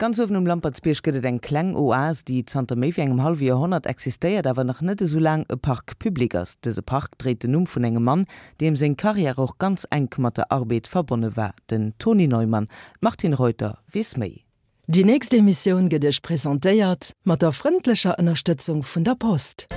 Ganz uewen um Lampertsbierg gëtt et eng kleng Oase, déi zanter méi wéi engem hallwe Joerhonnert existéiert, awer nach net esou laang e Parc public ass. Dëse Park dréit den Numm vun engem Mann, deem seng Karriär och ganz enk mat der Arbed verbonne war, den Tony Neumann. D'Martine Reuter weess méi. Déi nächst Emissioun gëtt Iech presentéiert mat der frëndlecher Ënnerstëtzung vun der Post.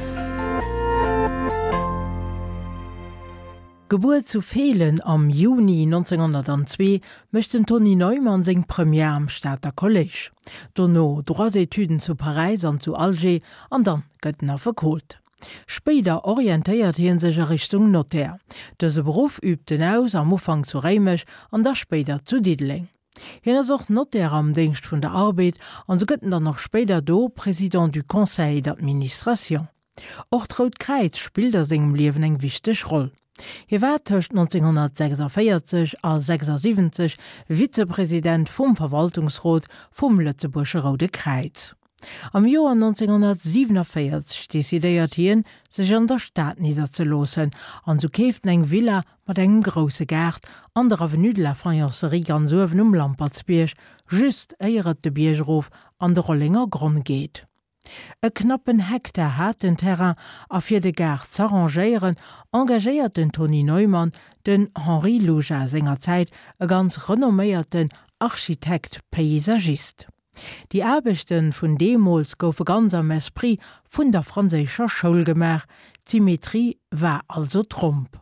Gebuer zu Feelen am Juni 1902, mécht den Tony Neumann seng Première am Stater Kolléisch. Dono Droits-Etüden zu Paräis an zu Alger an dann gëtt en Affekot. Spéider orientéiert hie sech a Richtung Notaire. Dëse Beruff übt en aus, am Ufank zu Réimech an da spéider zu Diddeleng. Hien ass och Notaire am Déngscht vun der Arbed an sou gëtt en dann och spéider do Président du Conseil d'administration. Och d'Rout Kräiz spillt a sengem Liewen eng wichteg Roll. Hie war tëscht 1946 a 76 Vizepresident vum Verwaltungsrot vum Lëtzebuergesche Roude Kräiz. Am Joer 1947 decidéiert hien, sech an der Stad nidderzeloossen an sou keeft en eng Villa mat engem grousse Gaart an der Avenue de la Faïencerie ganz uewen um Lampertsbierg, just éier et de Bierg erof an de Rollenger Gronn geet. E knappen Hektar hat den Terrain a fir de Gaart z'arrangéieren, engagéiert den Tony Neumann den Henri Luja, sengerzäit e ganz renomméierten Architekt-Paysagist. Déi Aarbechte vun deemools goufe ganz am Esprit vun der franséischer Schoul gemaach, d'Symmetrie war also Tromp.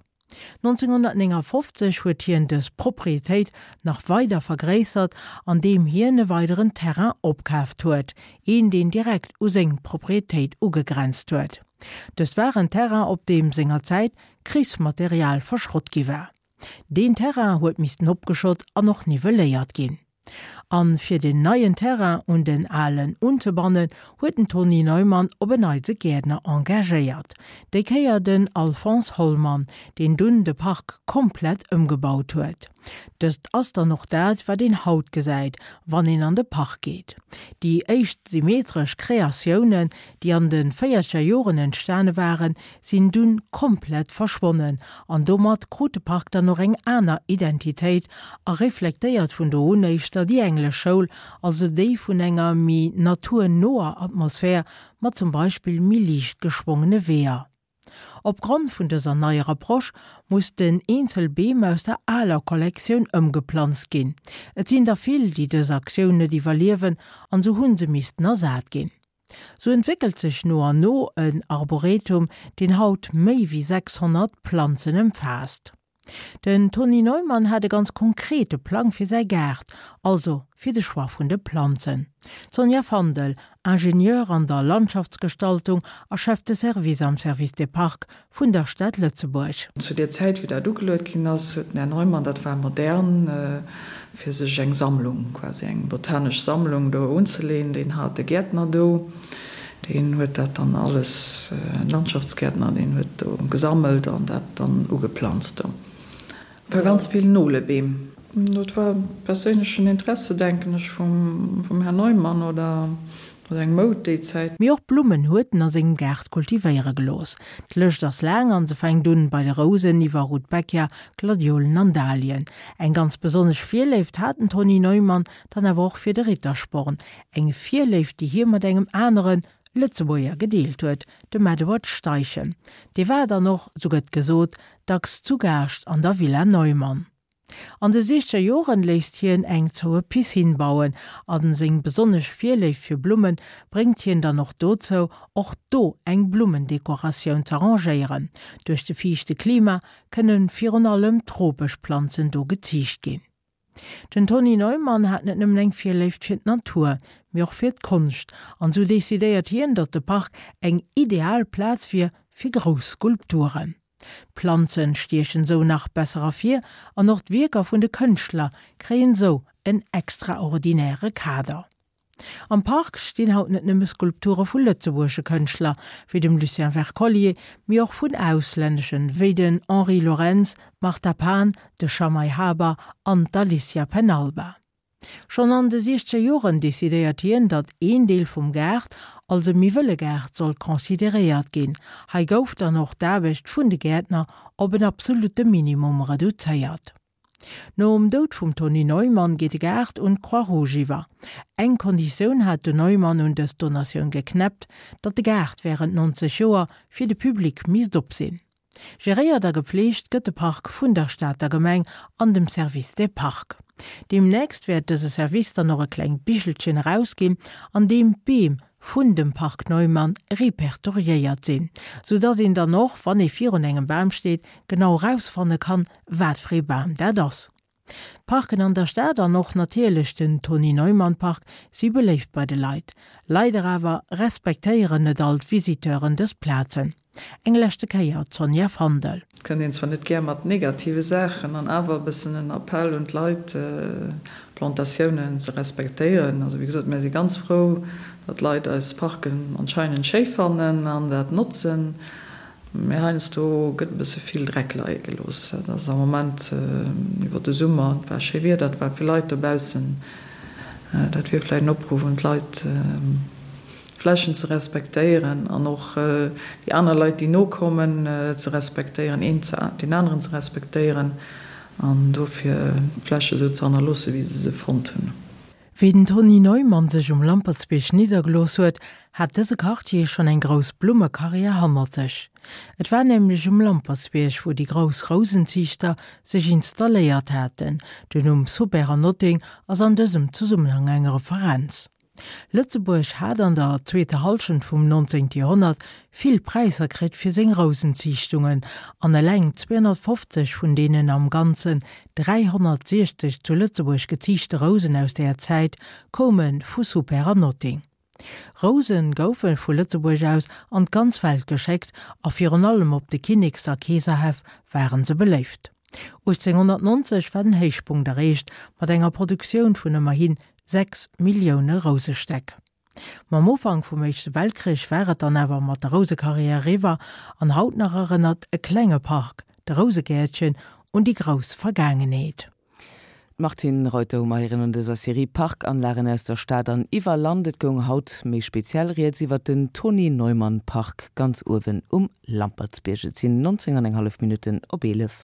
1959 huet hien dës Proprietéit nach weider vergréissert, an deem hien e weideren Terrain opkaaft huet, een deen direkt u seng Proprietéit ugegrenzt huet. Dëst war en Terrain op deem sengerzäit Krichsmaterial verschrott gi war. Deen Terrain huet missten opgeschott an och nivelléiert ginn. An fir den neien Terrain un den alen unzebannen, huet den Tony Neumann op en Neits e Gäertner engagéiert. Déi Kéier den Alphonse Hollmann, deen dunn de Park komplett ëmgebaut huet. Dëst ass dann och dat, wat een haut gesäit, wann een an de Park geet. Déi éischt symmetresch Kreatiounen, déi an de véierzeger Joren entstane waren, sinn dunn komplett verschwonnen an domat krut de Park dann och eng aner Identitéit a reflektéiert vun do un éischter déi englesch Schoul, also déi vun enger méi naturnoer Atmosphär mat zum Beispill méi liicht geschwongene Weeër. Opgrond vun dëser neier Approche mussten eenzel Beem aus der aler Kollektioun ëmgeplanzt ginn. Et sinn der vill, déi dës Aktioun net iwwerliewen an sou hunn se missten ersat ginn. Sou entwéckelt sech no an no en Arboretum, deen haut méi wéi 600 Planzen ëmfaasst. Den Tony Neumann hat e ganz konkrete Plang fir säi Gaart, also fir de Choix vun de Planzen. D'Sonja Fandel, Ingenieur an der Landschaftsgestaltung a Chef de Service am Service des Parcs vun der Stad Lëtzebuerg. Zu där Zäit, wéi dat ugeluet ginn ass, huet den Här Neumann, dat war modern, fir sech eng Sammlung, quasi eng botanesch Sammlung do unzeleen. Deen hat e Gäertner do, deen huet dat dann alles, en Landschaftsgäertner, deen huet do gesammelt an dat dann ugeplanzt do. War ganz vill Nolebeem. Dat war perséinlechen Interesse, denken ech, vum Här Neumann oder eng Moud déi Zäit. Mee och Blummen huet en a sengem Gaart kultivéiere gelooss. D'Lëscht ass laang an se fänkt un bei de Rousen iwwer Rudbeckia, Gladiolen an Dahlien. Eng ganz besonnesch Virléift hat den Tony Neumann dann awer och fir de Rittersporn. Eng Virléift, déi hie mat engem anere Lëtzebuerger gedeelt huet, dem Edward Steichen. Dee war dann och, sou gëtt gesot, dacks zu Gaascht an der Villa Neumann. An de siechzeger Joren léisst hien eng zoue Piscine bauen a seng besonnesch Virléift fir Blumme bréngt hien dann och dozou, och do eng Blummendekoratioun z'arrangéieren. Duerch de fiichte Klima kënne virun allem tropesch Planzen do geziicht ginn. Den Tony Neumann hat net nëmmen eng Virléift fir d'Natur, mee och fir d'Konscht, an sou decidéiert hien, datt de Park eng ideal Plaz wier fir grouss Skulpturen. D'Planzen stiechen sou nach besser ervir an och d'Wierker vun de Kënschtler kréien sou en extraordinäre Kader. Am Park stinn haut net nëmme Skulpture vu lëtzebuergesche Kënschtler, wéi dem Lucien Wercollier, mee och vun auslänneschen, wéi den Henri Laurens, d'Martha Pan, de Schamai Haber an d'Alicia Penalba. Schonn an de siechzeger Joren decidéiert hien, datt een Deel vum Gaart als e méi wëlle Gaart sollt consideréiert ginn. Hei gouf dann och d'Aarbecht vun de Gäertner op en absolutte Minimum reduzéiert. Nom Doud vum Tony Neumann geet de Gaart un d'Croix Rouge iwwer. Eng Konditioun hat den Neumann un dës Donatioun geknäppt, datt de Gaart wärend 90 Joer fir de Public misst op sinn. Geréiert a gepfleegt gëtt de Park vun der Stater Gemeng an dem Service des Parcs. Deemnächst wäert dëse Service dann och e klengt Bichelchen erausginn, an deem d'Beem vun dem Park Neumann repertoriéiert sinn, sou datt een dann och, wann ee virun engem Bam steet, genau erausfanne kann, wat fir ee Bam dat ass. D'Parken an der Stad an och natierlech den Tony Neumann Park si beléift bei de Leit. Leider awer respektéieren net all d'Visiteuren dës Plazen. Eng leschte Kéier d'Sonja Fandel. Et kënnt een zwar net gär mat negative Saachen an awer e bëssen en Appell un d'Leit, d'Plantatiounen ze respektéieren. Also wéi gesot, mär si ganz frou, datt d'Leit eis Parken anscheinend schéi fannen an dat notzen. Mee heiansdo gëtt e bësse vill Dreck leie gelooss. Dat ass am Moment iwwer de Summer, et war schéi Wieder, et war vill Leit dobaussen. Dat wier vläicht en Opruff un d'Leit, d'Flächen ze respektéieren an och déi aner Leit, déi nokommen, ze respektéieren, een deen aneren ze respektéieren an dofir d'Fläche esou ze hannerloossen, wéi se se fonnt hunn. Wéi den Tony Neumann sech um Lampertsbierg niddergelooss huet, hat dëse Quartier schonn eng grouss Blummekarriär hannert sech. Et war nämlech um Lampertsbierg, wou déi grouss Rousenziichter sech installéiert haten. Den Numm Soubert an Notting ass an dësem Zesummenhang eng Referenz. Lëtzebuerg hat an der zweeter Hallschent vum 19. Joerhonnert vill Präisser kritt fir seng Rousenziichtungen, an eleng 250 vun deenen am Ganzen 360 zu Lëtzebuerg geziichte Rousen aus där Zäit koume vu Soupert an Notting. Rouse goufe vu Lëtzebuerg aus an d'ganz Welt geschéckt a virun allem op de Kinneks a Keeserhäff ware se beléift. 1890 war den Héichpunkt erreecht mat enger Produktioun vun ëmmerhi 6 Millioune Rousestäck. Mam Ufank vum Éischte Weltkrich war et dann awer mat der Rousekarriär eriwwer an haut nach erënnert e klenge Park, de Rousegäertchen, un déi grouss Vergaangenheet. D'Martine Reuter hu mer héieren an dëser Serie Parkanlagen aus der Stad an iwwer Land. Et goung haut méi speziell rieds iwwer den Tony Neumann Park ganz uewen um Lampertsbierg. Et sinn 19 an eng hallef Minutten op 11.